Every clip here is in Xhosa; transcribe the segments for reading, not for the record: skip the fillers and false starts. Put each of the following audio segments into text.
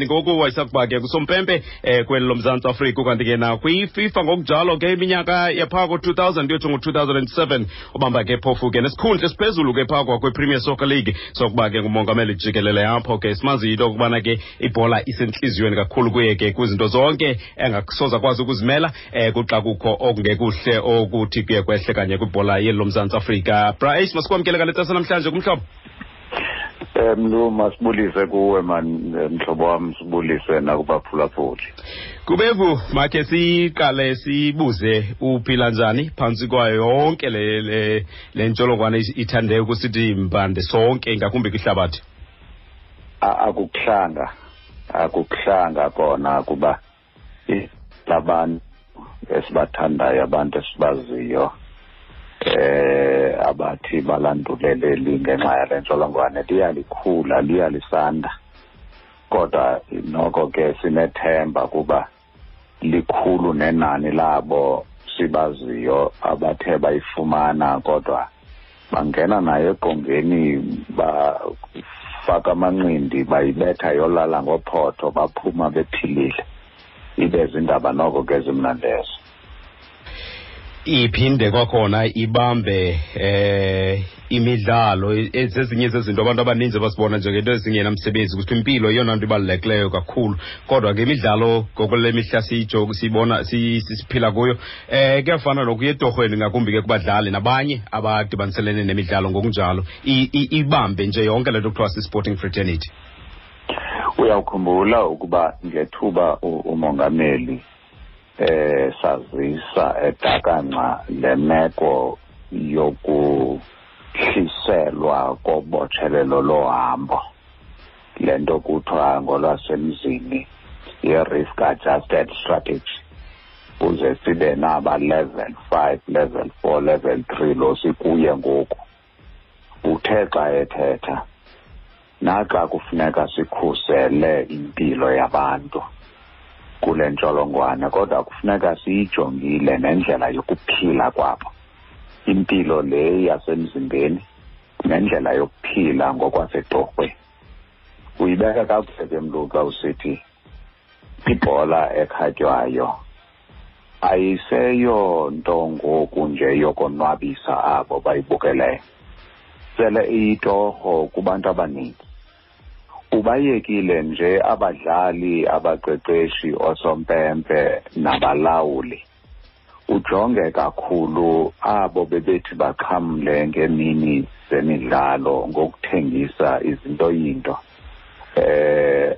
Ngoku wayesakuba ke kusompempe kweli loMzantsi Afrika, ukanti ke nakwiFIFA ngokunjalo ke iminyaka yaphaa ko-2000 kuyotsho ngo-2007, ubamba ke phofu ke nesikhundla esiphezulu ke phaa kwakwi-Premier Soccer League sokuba ke ngumongameli jikelele apho ke. Simazi into yokubana ke ibhola isentliziyweni kakhulu kuye ke kwizinto zonke engasoze akwazi ukuzimela kuxa kukho okungekuhle okuthi kuye kwehle kanye kwibhola yeli loMzantsi Afrika. Bra Ace, masikwamkele ngale tsasa namhlanje kumhlobo. Mlu, masibulise kuwe man, mhlobo wam, sibulise nakubaphulaphuli. Kubevu, makhe siqale sibuze uphila njani phantsi kwayo yonke le ntsholongwane ithande ukusithi mbande sonke, ngakumbi kwihlabathi? Akukuhlanga kona, kuba labantu esibathandayo, abantu esibaziyo, abathi balanduleleli ngenxa yale ntsholongwane, liyalikhula, liyalisanda, kodwa noko ke sinethemba kuba likhulu nenani labo sibaziyo abathe bayifumana, kodwa bangena nayo eqongeni, bafaka amanqindi, bayibetha yolala ngophotho, baphuma bephilile. Ibe zindaba noko ke zimnandi ezo. Iphinde kwakhona ibambe imidlalo, zezinye zezinto abantu abaninzi abasibona njengento ezingenamsebenzi, ukuthi impilo yeyona nto ibalulekileyo kakhulu, kodwa ke imidlalo ngokule mihla siyibona siphila kuyo, kuyafana nokuya etorhweni, ngakumbi ke kubadlali nabanye abadibaniselene nemidlalo ngokunjalo, ibambe nje yonke le nto kuthiwa si-sporting fraternity. Uyawukhumbula ukuba ngethuba umongameli sazisa edakanca le meko yokuhliselwa kobotshelelo lohambo, le nto kuthiwa ngolwasemzini ye-risk adjusted strategy, kuze sibe naba level 5, level 4, level 3 lo sikuye ngoku. Uthe xa ethetha, naxa kufuneka sikhusele impilo yabantu kule ntsholongwane, kodwa kufuneka siyijongile nendlela yokuphila kwabo, impilo le yasemzimbeni nendlela yokuphila ngokwasetorhweni. Uyibeka kakuhle ke mntu xa usithi ibhola ekhatywayo ayiseyonto ngoku nje yokonwabisa abo bayibukeleyo, sele iyitorho kubantu abaninzi. Ubayekile nje abadlali, abaqeqeshi, osompempe nabalawuli, ujonge kakhulu abo bebethi baxhamle ngemini zemidlalo ngokuthengisa izinto yinto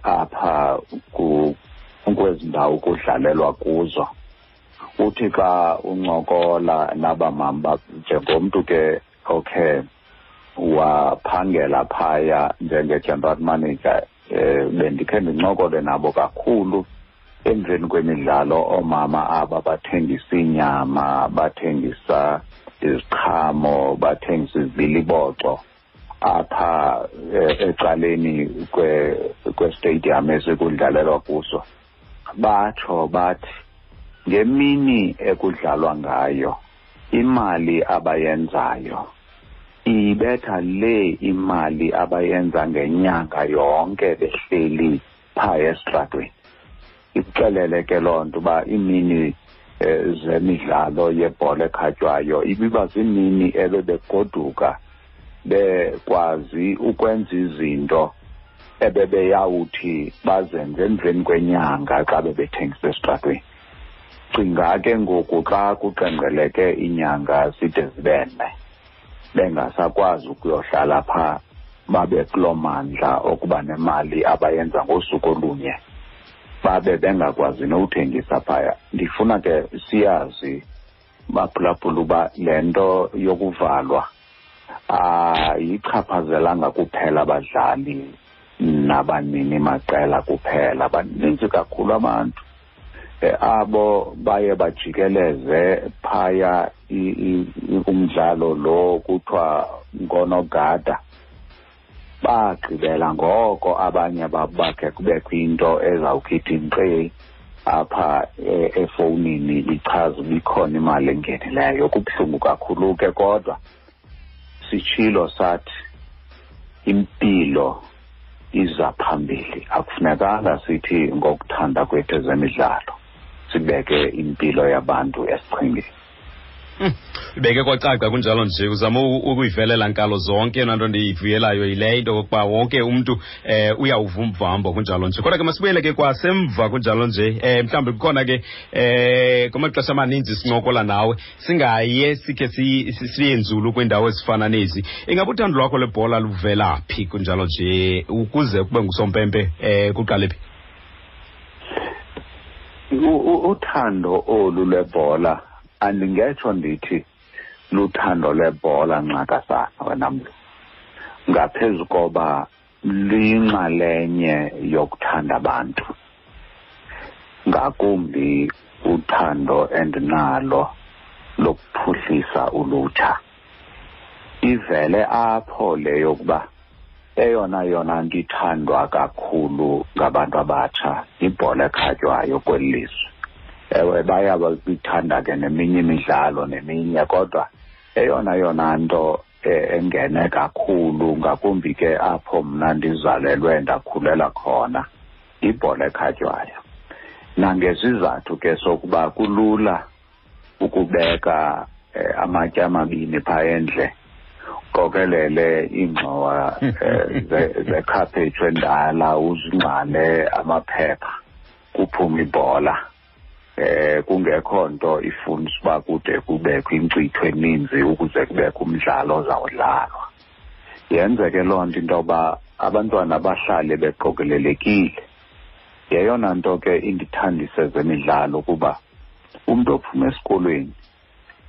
apha kwezi ndawo kudlalelwa kuzo. Uthi xa uncokola nabamama, njengomntu ke okhe waphangela phaya njenge-general manager, bendikhe ndincokole nabo kakhulu emveni kwemidlalo, oomama aba bathengisa inyama, bathengisa iziqhamo, bathengisa izibiliboco apha ecaleni kwestadium esikudlalelwa kuso. Batsho bathi ngemini ekudlalwa ngayo imali abayenzayo ibetha le imali abayenza ngenyanga yonke behleli phaa esitratweni. Ikuxelele ke loo nto uba iimini zemidlalo yebhola ekhatywayo ibiba ziimini ebebegoduka bekwazi ukwenza izinto ebebeyawuthi bazenze emveni kwenyanga xa bebethengisa esitratweni. Cinga ke ngoku xa kuqengqeleke iinyanga zide zibe nne bengasakwazi ukuyohlala phaa, babe kuloo mandla okuba nemali abayenza ngosuku olunye, babe bengakwazi nowuthengisa phaya. Ndifuna ke siyazi baphulaphula uba le nto yokuvalwa ayichaphazelanga kuphela abadlali nabanini maqela kuphela, baninzi kakhulu abantu abo baye bajikeleze phaya umdlalo lo kuthiwa ngonogada. Bagqibela ngoko abanye bakhe kubekho into ezawukhipha inkqeyi apha efowunini ichaza uba ikhona imali engenileyo. Kubuhlungu kakhulu ke, kodwa sitshilo sathi impilo iza phambili. Akufunekanga sithi ngokuthanda kwethu ezemidlalo sibeke impilo yabantu esichengeni. Ibeke kwacaca kunjalo nje, uzama ukuyivelela nkalo zonke. Yona nto ndiyivuyelayo yile into yokokuba wonke umntu uyawuva umvambo kunjalo nje. Kodwa ke masibuyele ke kwasemva kunjalo nje, mhlawumbi kukhona ke kumaxesha amaninzi sincokola nawe singaye sikhe siye nzulu kwiindawo ezifana nezi. Ingaba uthando lwakho lwebhola luvela phi kunjalo nje, ukuze kube ngusompempe kuqale phi? Uthando olu lwebhola andingetsho ndithi luthando lwebhola nxakasana wena mntu, ngaphezu koba luyinxalenye yokuthanda abantu, ngakumbi uthando endinalo lokuphuhlisa ulutsha. Ivele apho le yokuba eyona yona nto ithandwa kakhulu ngabantu abatsha yibhola ekhatywayo kweli lizwe. Ewe, bayabithanda ke neminye imidlalo neminye, kodwa eyona yona nto engene kakhulu, ngakumbi ke apho mna ndizalelwe ndakhulela khona, ibhola ekhatywayo. Nangezizathu ke sokuba kulula ukubeka amatye amabini phaa endle, qokelele iingxowa zekhaphetshu endala, uzingxale amaphepha, kuphume ibhola. Kungekho nto ifunisa uba kude kubekho inkcitho eninzi ukuze kubekho umdlalo ozawudlalwa. Yenzeke loo nto into yoba abantwana bahlale beqokelelekile. Yeyona nto ke indithandise zemidlalo, kuba umntu ophuma esikolweni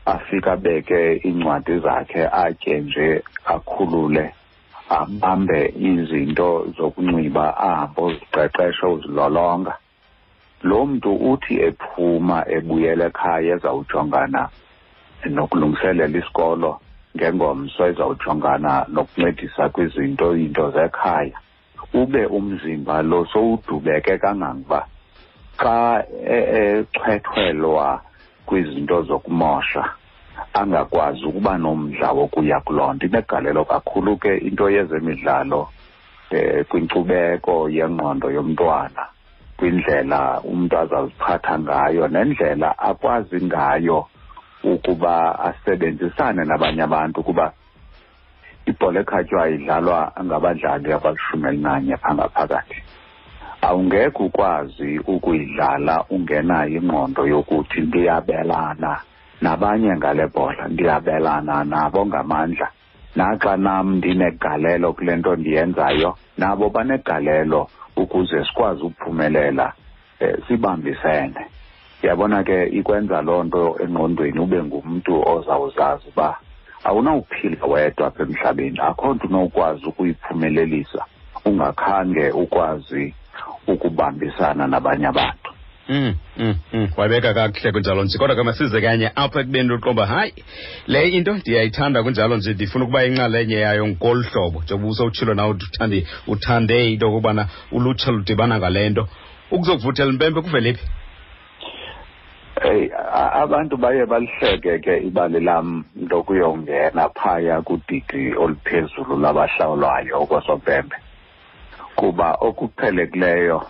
afike abeke iincwadi zakhe, atye nje, akhulule, abambe izinto zokunxiba, ahambe uziqeqesha, uzilolonga. Lo mntu uthi ephuma ebuyela ekhaya ezawujongana nokulungiselela isikolo ngengomso, ezawujongana nokuncedisa kwizinto into zekhaya, ube umzimba lo sowudubeke kangangokuba xa echwethwelwa kwizinto zokumosha angakwazi ukuba nomdla wokuya kuloo nto. Inegalelo kakhulu ke into yezemidlalo kwinkcubeko yengqondo yomntwana, kwindlela umntu azaziphatha ngayo nendlela akwazi ngayo ukuba asebenzisane nabanye abantu, kuba ibhola ekhatywayo idlalwa ngabadlali abali-11 phaa ngaphakathi. Awungekho ukwazi ukuyidlala ungenayo ingqondo yokuthi ndiyabelana nabanye ngale bhola, ndiyabelana nabo ngamandla, naxa nam ndinegalelo kule nto ndiyenzayo, nabo banegalelo ukuze sikwazi ukuphumelela, sibambisene. Yabona ke ikwenza loo nto engqondweni ube ngumntu ozawuzazi uba awunawuphila wedwa apha emhlabeni, akho nto unokwazi ukuyiphumelelisa ungakhange ukwazi ukubambisana nabanye abantu. Wabeka kakuhle kunjalo nje. Kodwa ke masize kanye apha ekubeni uqomba, hayi, le into ndiyayithanda kunjalo nje, ndifuna ukuba inxalenye yayo ngolu hlobo. Njengoba usowutshilo nawe uthande into yokubana ulutsha ludibana ngale nto. Ukuzokuvuthela impempe kuvele phi? Hey, abantu baye balihleke ke ibali lam lokuyongena phaya kudidi oluphezulu labahlawulwayo okwasompempe, kuba okuqhelekileyo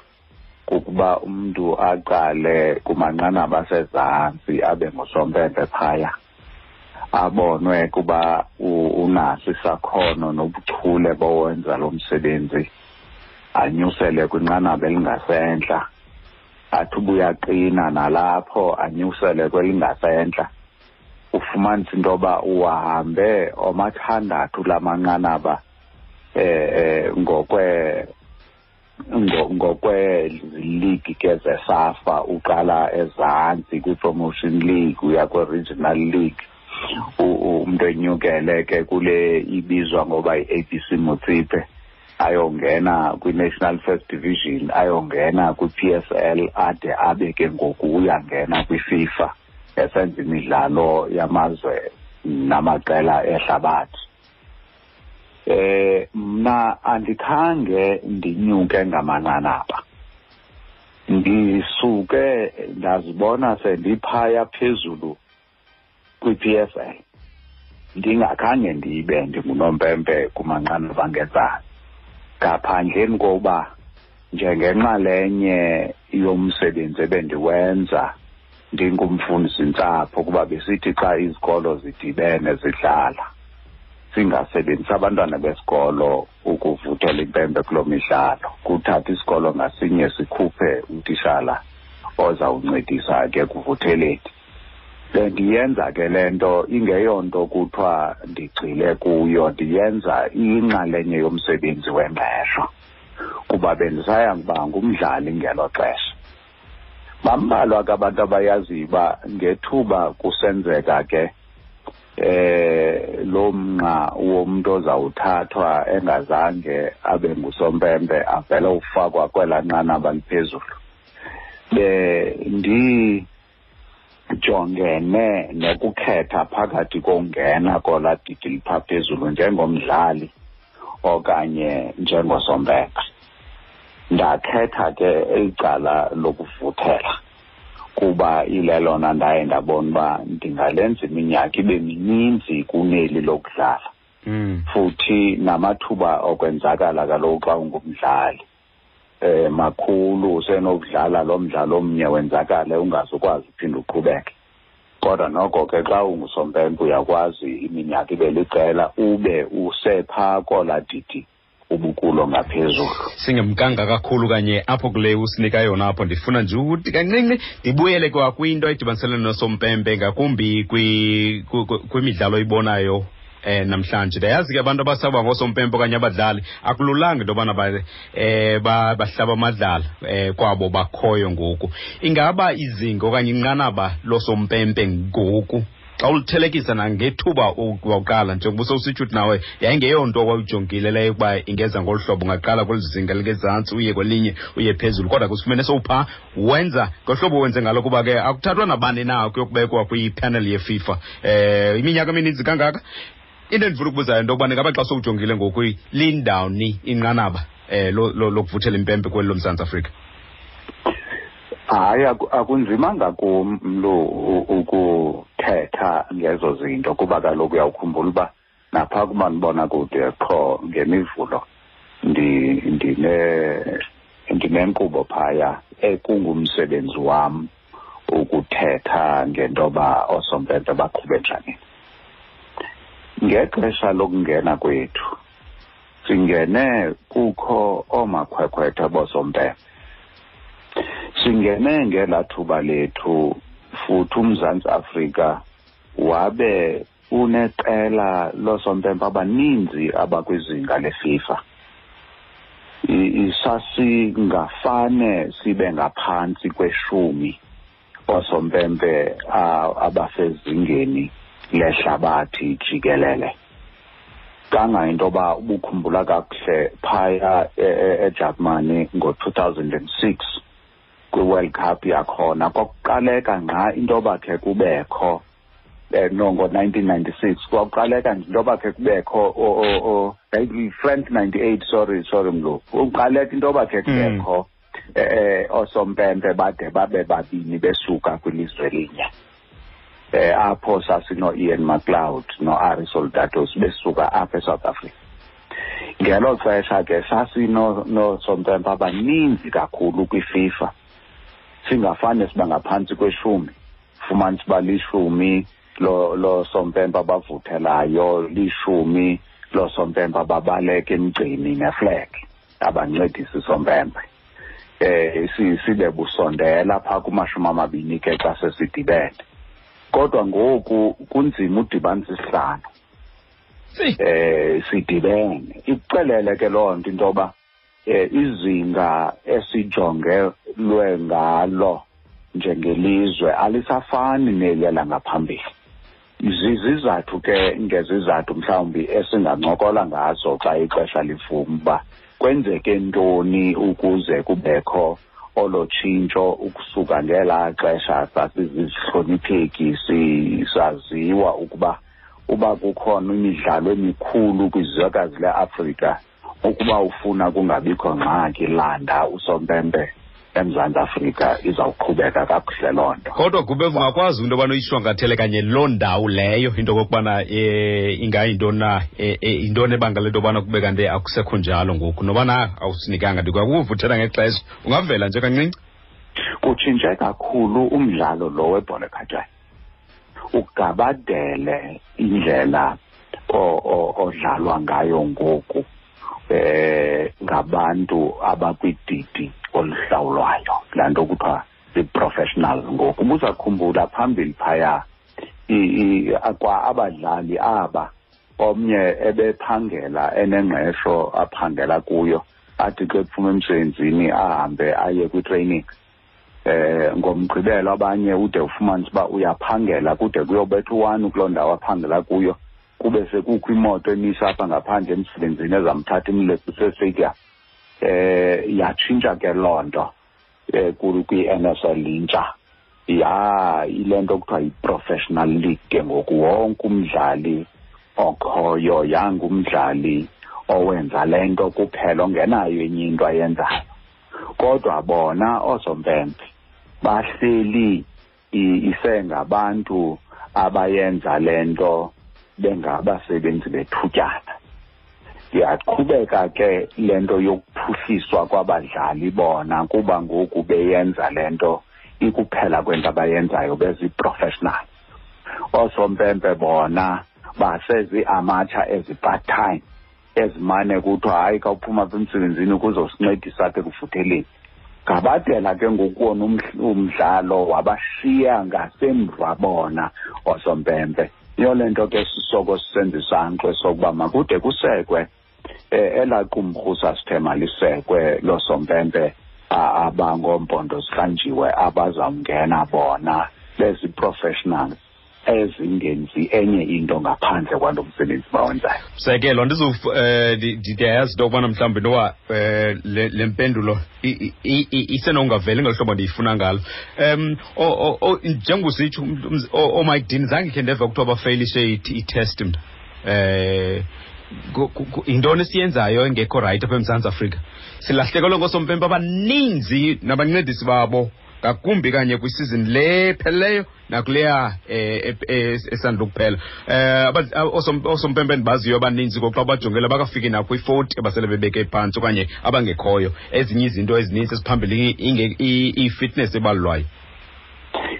kukuba umntu aqale kumanqanaba asezantsi abe ngusompempe phaya, abonwe kuba unaso isakhono nobuchule bowenza lo msebenzi, anyusele kwinqanaba elingasentla, athi ubuyaqina nalapho anyusele kwelingasentla. Ufumanisa into yoba uhambe omathandathu lamanqanaba ngokwe-league ke zeSAFA, uqala ezantsi kwi-promotion league uya kwi-regional league, umntu enyukele ke kule ibizwa ngoba yi-ABC Motsepe, ayongena kwi-National First Division, ayongena kwi-PSL, ade abe ke ngoku uyangena kwi-FIFA esenza imidlalo yamazwe namaqela ehlabathi. Mna andikhange ndinyuke ngamanqanaba, ndisuke ndazibona sendiphaya phezulu kwi-PSL, ndingakhange ndibe ndingunompempe kumanqanaba angezantsi. Ngaphandleni kokuba njengenxalenye yomsebenzi ebendiwenza ndingumfundisi-ntsapho, kuba besithi xa izikolo zidibene zidlala singasebenzisi abantwana besikolo ukuvuthela impempe kuloo midlalo, kuthatha isikolo ngasinye sikhuphe utishala ozawuncedisa ke kuvutheleni. Bendiyenza ke le nto ingeyonto kuthiwa ndigxile kuyo, ndiyenza iyinxalenye yomsebenzi wengqesho kuba bendisaya kuba ngumdlali ngelo xesha. Bambalwa ke abantu abayaziyo uba ngethuba kusenzeka ke lo mnqa womntu ozawuthathwa engazange abe ngusompempe avele ufakwa kwelaa nqanaba liphezulu, bendijongene nokukhetha phakathi kongena kolaa didi lipha phezulu njengomdlali okanye njengosompempe. Ndakhetha ke icala lokuvuthela kuba ilelona ndaye ndabona uba ndingalenza iminyaka ibe mininzi kuneli lokudlala. Futhi namathuba okwenzakala kaloku xa ungumdlali makhulu, usenokudlala lo mdlalo omnye wenzakale ungazukwazi uphinda uqhubeke. Kodwa noko ke xa ungusompempe uyakwazi iminyaka ibe liqela ube usepha kola didi ubukulo ngaphezulu. Singemkanga kakhulu kanye apho kule usinika yona apho, ndifuna nje ukuthi kancinci ndibuyele kwa kwinto edibaniselene nosompempe, ngakumbi kwimidlalo oyibonayo namhlanje. Ndiyayazi ke abantu abasaba ngoosompempe okanye abadlali akululanga into yobana bahlaba amadlala kwabo bakhoyo ngoku. Ingaba izinga okanye inqanaba losompempe ngoku xa ulithelekisa nangethuba wawuqala, njengoba usowusitsho uthi nawe yayingeyonto owawujongile leyo ukuba ingeza ngolu hlobo, ungaqala kweli zinga lingezantsi uye kwelinye uye phezulu, kodwa kusifumene sowuphaa wenza ngohlobo wenze ngalo, kuba ke akuthathwa nabani na kuyokubekwa kwipanel yeFIFA iminyaka emininzi kangaka. Into endifuna ukubuzayo into yokubana ingaba xa sowujongile ngoku lindawuni inqanaba lokuvuthela impempe kweli loMzantsi Afrika? Hayi, akunzimanga kum lo ukuthetha ngezo zinto, kuba kaloku uyawukhumbula uba napha kumanibona kude qho ngemivulo ndinenkqubo phaya ekungumsebenzi wam ukuthetha ngentoba oosompempe baqhube njani. Ngexesha lokungena kwethu singene kukho oomakhwekhwetha boosompempe, singene ngelaa thuba lethu futhi uMzantsi Afrika wabe uneqela loosompempe abaninzi abakwizinga leFIFA. Sasingafane sibe ngaphantsi kweshumi oosompempe abasezingeni lehlabathi jikelele. Kangayinto yoba ubukhumbula kakuhle phaya eJalimane ngo-2006 kwi-World Cup yakhona, kwakuqaleka ngqa into yoba khe kubekho no ngo-1996 kwakuqaleka nje into yoba khe kubekho France 98, sorry mlo, kuqaleka into yoba khe kubekho oosompempe bade babe babini besuka kwilizwe elinye. Apho sasino-Ian McLeod no-Ari Soldatos besuka apha eSouth Africa. Ngelo xesha ke sasinosompempe abaninzi kakhulu kwiFIFA, singafane siba ngaphantsi kweshumi, fumanisa uba lishumi loosompempe abavuthelayo, lishumi loosompempe ababaleka emgceni neflag abancedisa isompempe. Sibe busondela phaa kumashumi 20 ke xa sesidibene. Kodwa ngoku kunzima udibanisa isihlanu sidibene. Ikuxelele ke loo nto into yoba izinga esijongelwe ngalo njengelizwe alisafani neliya langaphambili. Zizizathu ke ngezizathu mhlawumbi esingancokola ngazo xa ixesha livuma uba kwenzeke ntoni ukuze kubekho olo tshintsho ukusuka ngelaa xesha sasizihlonipheki saziwa ukuba uba kukhona imidlalo emikhulu kwizwekazi leAfrika, ukuba ufuna kungabikho ngxaki landa usompempe eMzantsi Afrika izawuqhubeka kakuhle loo nto. Kodwa Gubevu, ungakwazi into yobana uyishwankathele kanye loo ndawo leyo, into okokubana ingayintoni na, yintoni ebangela into yobana kube kanti akusekho njalo ngoku, nobana awusinikanga, ndikwakuvuthela ngexesha, ungavela nje kancinci? Kutshintshe kakhulu umdlalo lo webhola ekhatywayo, ugabadele indlela odlalwa ngayo ngoku ngabantu abakwididi oluhlawulwayo, laa nto kuthiwa zii-professionals ngoku. Ubuzakhumbula phambili phaya kwa abadlali aba, omnye ebephangela enengqesho aphangela kuyo, athi xa ephuma emsebenzini ahambe aye kwi-training. Ngomgqibelo abanye ude ufumanise uba uyaphangela kude kuyobetha u-1 kuloo ndawo aphangela kuyo, kube sekukho imoto emisa apha ngaphandle emsebenzini ezamthatha imleqise estadium. Yatshintsha ke loo nto kwi-N S L intsha, ya ile nto kuthiwa yi-professional league ke ngoku. Wonke umdlali okhoyo yangumdlali owenza le nto kuphela, ongenayo enye into ayenzayo. Kodwa bona oosompempe bahleli isengabantu abayenza le nto bengabasebenzi bethutyana. Iyaqhubeka ke le nto yokuphuhliswa kwabadlali bona, kuba ngoku beyenza le nto ikuphela kwento abayenzayo, bezi-professional. Oosompempe bona basezi-amateur ezi-part-time, ezimane kuthiwa hayi, khawuphuma apha emsebenzini ukuzosincedisa apha ekuvutheleni. Ngabadela ke ngoku wona umdlalo wabashiya ngasemva bona oosompempe. Yiyo le nto ke sisoko sisenza isankxwe sokuba makude kusekwe elaa qumrhu sasithe malisekwe loosompempe abangoompondo zihlanjiwe, abazawungena bona bezi-professionals ezingenzi enye into ngaphandle kwalo msebenzi bawenzayo. Msekelo, ndiyayazi into yokubana mhlawumbi noba le mpendulo isenongaveli ngolu hlobo ndiyifuna ngalo. Njengositsho ooMike Dean, zange khe ndeva kuthiwa bafeyilishe i-test mna. Yintoni esiyenzayo engekho rayithi apha eMzantsi Afrika? Silahlekelwe ngoosompempe abaninzi nabancedisi babo, ngakumbi kanye kwisizini le pheleleyo nakuleya esandula ukuphela. Oosompempe endibaziyo abaninzi ngoku xa bajongela bakafiki nakwi-40 abasele bebeke phantsi okanye abangekhoyo. Ezinye izinto ezininzi eziphambili i-fitness ebalulwayo.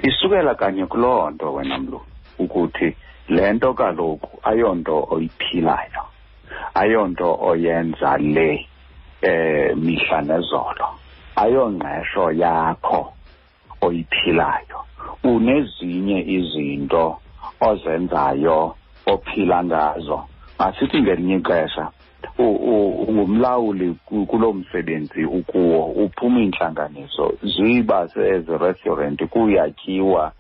Isukela kanye kuloo nto wena mlu, ukuthi le nto kaloku ayonto oyiphilayo, ayonto oyenza le mihla nezolo, ayongqesho yakho oyiphilayo. Unezinye izinto ozenzayo ophila ngazo. Masithi ngelinye ixesha ungumlawuli kuloo msebenzi ukuwo, uphuma iintlanganiso, ziba sezi-restaurant kuyatyiwa,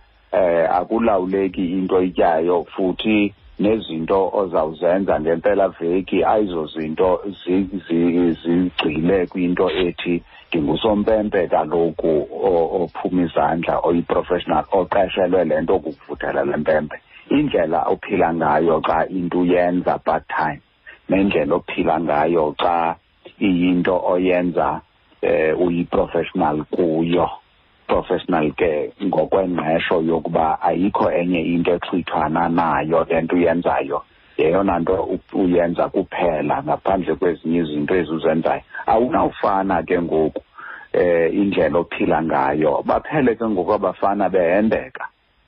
akulawuleki into oyityayo, futhi nezinto ozawuzenza ngempela veki ayizozinto zigxile kwinto ethi ndingusompempe kaloku ophuma izandla, oyi-professional, oqeshelwe le nto kukuvuthela le mpempe. Indlela ophila ngayo xa into uyenza part time nendlela ophila ngayo xa iyinto oyenza uyi-professional kuyo, professional ke ngokwengqesho yokuba ayikho enye into exhwithwana nayo le nto uyenzayo, yeyona nto uyenza kuphela ngaphandle kwezinye izinto ezizenzayo. Awunawufana ke ngoku indlela ophila ngayo. Baphele ke ngoku abafana behendeka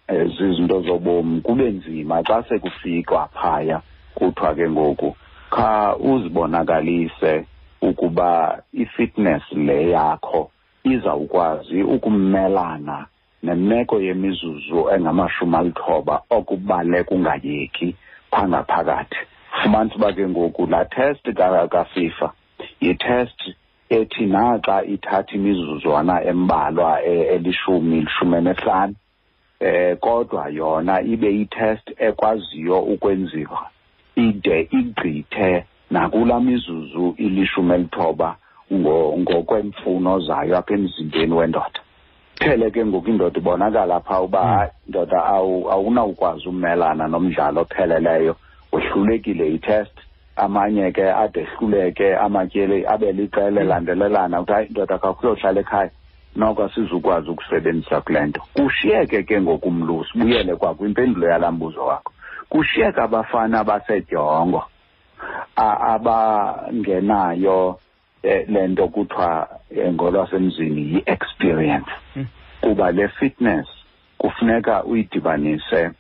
zizinto zobomi, kube nzima xa sekufikwa phaya kuthiwa ke ngoku kha uzibonakalise ukuba i-fitness le yakho izawukwazi ukumelana nemeko yemizuzu engamashumi 90 okubaleka ungayeki phaa ngaphakathi. Fumanisa uba ke ngoku laa test kaFIFA yi-test ethi naxa ithatha imizuzwana embalwa elishumi, 15, kodwa yona ibe yi-test ekwaziyo ukwenziwa ide igqithe nakulaa mizuzu ili-19 ngokwemfuno zayo apha emzimbeni wendoda. Phele ke ngoku indoda ibonakala phaa uba hayi ndoda, awunawukwazi umelana nomdlalo opheleleyo, wehlulekile yi-test. Amanye ke ade ehluleke amatyeli abe liqela elandelelana, uthi hayi ndoda, khawukhe uyohlala ekhaya. Noko asizukwazi ukusebenzisa kule nto. Kushiyeke ke ngoku, mlu, sibuyele kwakwimpendulo yalaa mbuzo wakho, kushiyeka abafana basedyongo abangenayo le nto kuthiwa ngolwasemzini yi-experience, kuba le fitness kufuneka uyidibanise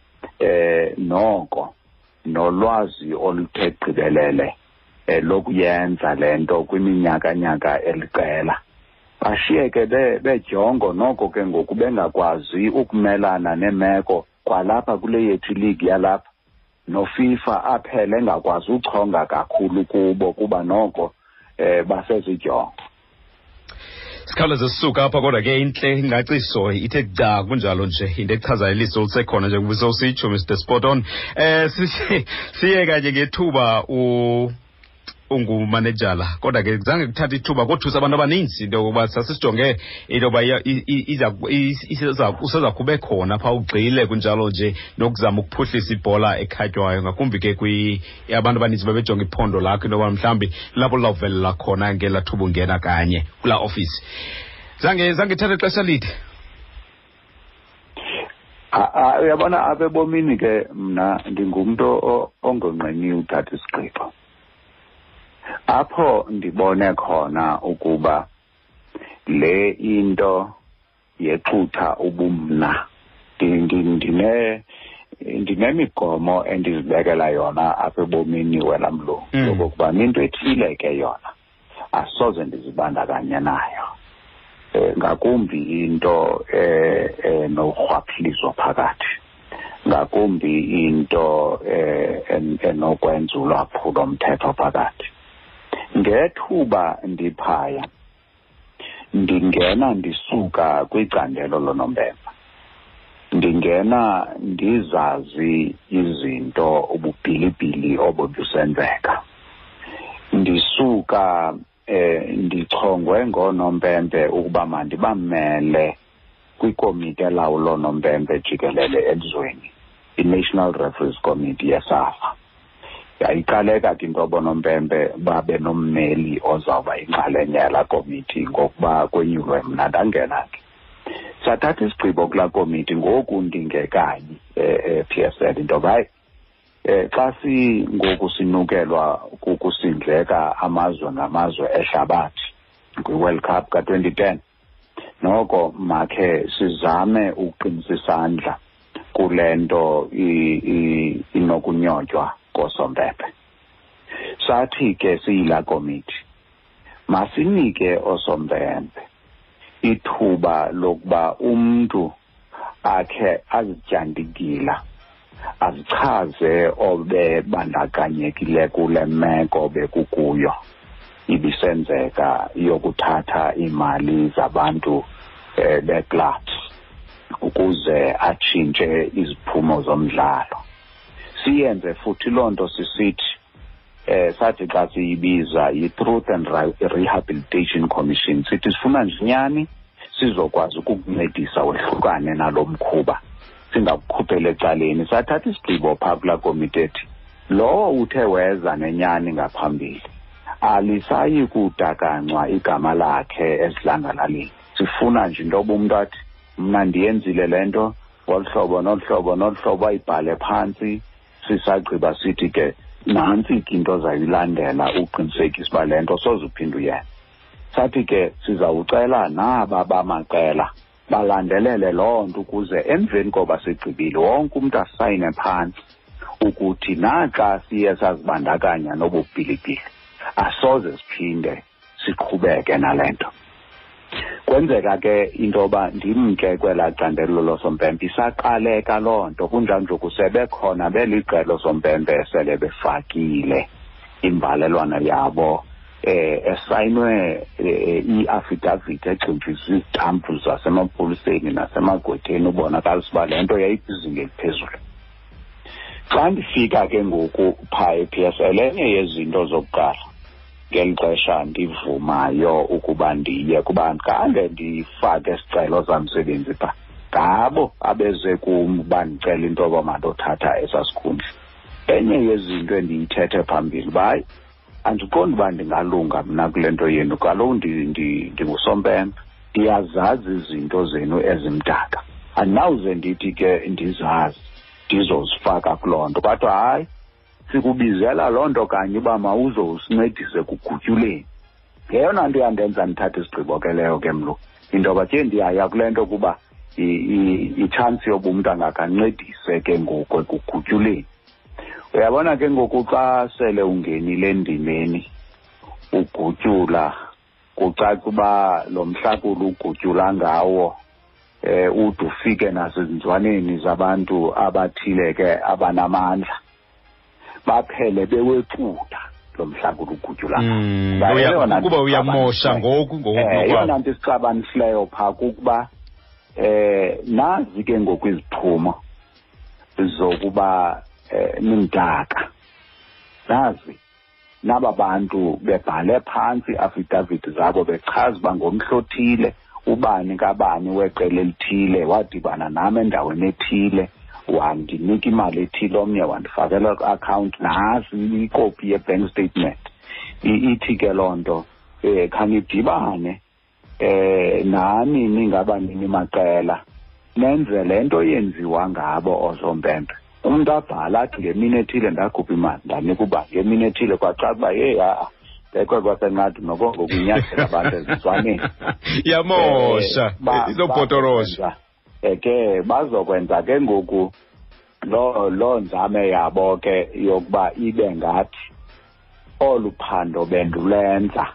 noko nolwazi oluthe gqibelele lokuyenza le nto kwiminyaka-nyaka eliqela. Bashiyeke bejongo noko ke ngoku bengakwazi ukumelana neemeko kwalapha kule yethu iligi yalapha, noFIFA aphele engakwazi uchonga kakhulu kubo kuba noko basezidyongo. Sikhawuleze sisuka apha, kodwa ke intle ingcaciso ithe gca kunjalo nje, into echazayo iliso lisekhona njengoba sowusitsho, Mr Spot On. Siye kanye ngethuba ungumanejala, kodwa ke zange kuthatha ithuba kothusa abantu abaninzi into yokokuba sasisijonge into yoba useza kube khona phaa ugxile kunjalo nje nokuzama ukuphuhlisa ibhola ekhatywayo, ngakumbi ke abantu abaninzi babejonga iphondo lakho into yoba mhlawumbi lapho lizawuvelela khona ngelaa thuba ungena kanye kulaa ofisi. Zange ithathe ixesha lide. Uyabona apha ebomini ke mna ndingumntu ongonqeniyo uthatha isigqibo. Apho ndibone khona ukuba le into yexutha ubumna, ndinemigomo endizibekela yona apha ebomini wena mlungu, yokokuba into ethile ke yona asoze ndizibandakanye nayo, ngakumbi into enorhwaphilizo phakathi, ngakumbi into enokwenza ulwaphulo mthetho phakathi. Ngethuba ndiphaya ndingena ndisuka kwicandelo lonompempe, ndingena ndizazi izinto ububhilibhili obo busenzeka, ndisuka ndichongwe ngoonompempe ukuba mandibamele kwikomiti elawula oonompempe jikelele elizweni, i-National Referees Committee yeSAFA. Yayiqaleka ke into yoba oonompempe babe nommeli ozawuba yinxalenye yalaa komiti ngokuba kwenyulwe mna, ndangena ke. Sathatha isigqibo kulaa komiti ngoku ndingekayi e-PSL into yoba hayi, xa singoku sinukelwa kukusindleka amazwe ngamazwe ehlabathi kwi-World Cup ka-2010, noko makhe sizame ukuqinisa isandla kule nto inokunyotywa koosompempe. Sathi ke siyilaa komiti, masinike oosompempe ithuba lokuba umntu akhe azityandikila, azichaze obebandakanyekile kule meko bekukuyo ibisenzeka yokuthatha iimali zabantu beclubs ukuze atshintshe iziphumo zomdlalo. Siyenze futhi loo nto sisithi, sathi xa siyibiza yi-Truth and Rehabilitation Commission, sithi sifuna nje inyani sizokwazi ukukuncedisa wehlukane nalo mkhuba, singakukhuphela ecaleni. Sathatha isigqibo phaa kulaa komiti ethi lowo uthe weza nenyani ngaphambili alisayi kudakancwa igama lakhe esidlangalaleni. Sifuna nje into yoba umntu athi mna ndiyenzile le nto ngolu hlobo nolu hlobo nolu hlobo, ayibhale phantsi. Sisagqiba sithi ke nantsi ke into ozayilandela uqinisekisa uba le nto soze uphinde uyenze. Sathi ke sizawucela naba bamaqela balandelele loo nto ukuze emveni koba sigqibile wonke umntu asayine phantsi ukuthi naxa siye sazibandakanya nobubhilibhili asoze siphinde siqhubeke nale nto. Kwenzeka ke into yoba ndimke kwelaa candelo losompempe, isaqaleka loo nto kunjalo nje kusebekhona beliqela osompempe esele befakile imbalelwano yabo esayinwe i-affidavit egximfiswe izitampu zasemapoliseni nasemagqwetheni ubonakalisa uba le nto yayikwizinga eliphezulu. Xa ndifika ke ngoku phaa e-PSL, enye yezinto zokuqala ngeli xesha ndivumayo ukuba ndiye kuba khange ndifake isicelo samsebenzi phaa, ngabo abeze kum bandicela into yoba mandothatha esaa sikhundla. Enye yezinto endiyithethe phambili uba hayi, andiqondi uba ndingalunga mna kule nto yenu, kaloku ndingusompempe, Ndiyazazi izinto zenu ezimdaka, andinawuze ndithi ke ndizazi ndizozifaka kuloo nto. Kodwa hayi, sikubizela loo nto kanye uba mawuzosincedise kugutyuleni. Ngeyona nto yandenza ndithathe isigqibo ke leyo ke mlo, into yoba ke ndiyaya kule nto kuba itshansi yoba umntu angakancedise ke ngoku ekugutyuleni. Uyabona ke ngoku xa sele ungenile endimeni ugutyula, kucaca uba lo mhlakulo ugutyula ngawo ude ufike nasezinzwaneni zabantu abathile ke abanamandla, baphele bewexuda lo mhlakulo ugutyula. Kuba uyamosha ngoku ngoku. Eyona nto isixabanisileyo phaa kukuba nazi ke ngoku iziphumo zokuba nimdaka. Nazi naba bantu bebhale phantsi i-affidavit zabo bechaza uba ngomhla othile ubani kabani weqela elithile wadibana nam endaweni ethile, wandinika imali ethile, omnye wandifakela kwi-akhawunti, nasi ikopi ye-bank statement. Ithi ke loo nto khanidibane nani ningabanini maqela nenze le nto yenziwa ngabo oosompempe. Umntu abhala athi ngemini ethile ndakhupha imali ndanika uba ngemini ethile, kwacaca uba yeyi ha-a bekwe kwasenqadi noko ngokunyathela abantu ezizwaneni. Yamosha, izobhotorosha. Ke bazokwenza ke ngoku loo nzame yabo ke yokuba ibe ngathi olu phando bendulenza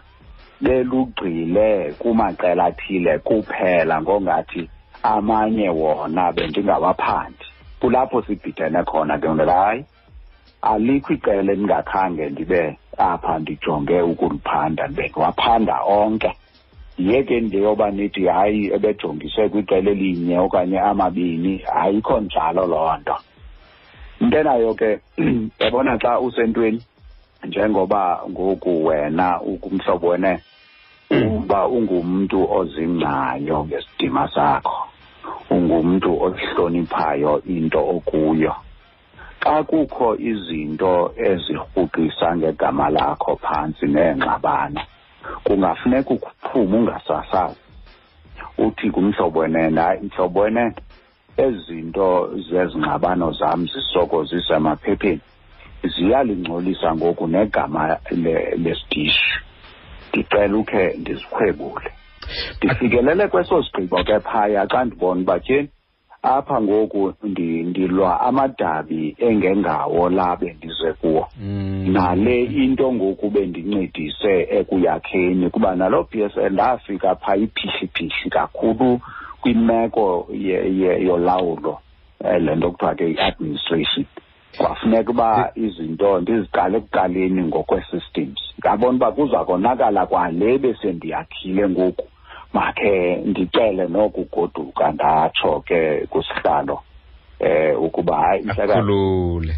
belugxile kumaqela athile kuphela, ngongathi amanye wona bendingawaphandi. Kulapho sibhidene khona ke ngoku, hayi alikho iqela endingakhange ndibe apha ndijonge ukuliphanda, bendiwaphanda onke. Yeke nje yoba nithi hayi ebejongise kwiqela elinye okanye amabini, ayikho njalo loo nto. Into enayo ke, yabona xa usentweni njengoba ngoku wena ukumhlobo wene, uba ungumntu ozingcayo ngesidima sakho, ungumntu ohloniphayo into okuyo. Xa kukho izinto ezirhuqisa ngegama lakho phantsi neengxabano, kungafuneka ukuphume ungasasazi, uthi kumhlobo wenene, hayi mhlobo wenene, ezi zinto zezingxabano zam zisoko zisemaphepheni ziyalingcolisa ngoku negama lesidishi, ndicela ukhe ndizikhwebule. Ndifikelele kweso sigqibo ke phaya xa ndibona uba tyheni apha ngoku ndilwa amadabi engengawo la bendize kuwo. Nale into ngoku bendincedise ekuyakheni, kuba naloo PSL ndafika phaa iphihliphihlhi kakhulu kwimeko yolawulo, le nto kuthiwa ke i-administration. Kwafuneka uba izinto ndiziqale ekuqaleni ngokwe-systems. Ndabona uba kuza konakala kwale besendiyakhile ngoku, makhe ndicele nokugoduka, ndatsho ke kusihlalo ukuba hayi mhlekazi,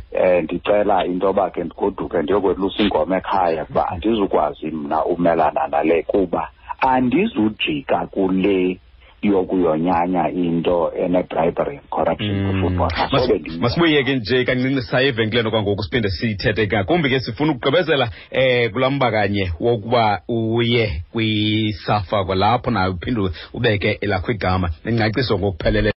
ndicela into yoba ke ndigoduke ndiyokwelusa inkomo ekhaya, kuba andizukwazi mna umelana nale, kuba andizujika kule yokuyonyanya into ene-bribery and corruption kwi-football. Masibuye ke nje kancinci saye evenkileni kwangoku, siphinde sithethe ngakumbi ke, sifuna ukugqibezela kulaa mba kanye wokuba uye kwiSAFA kwalapho nayo uphinde ubeke elakho igama nengcaciso ngokupheleleyo.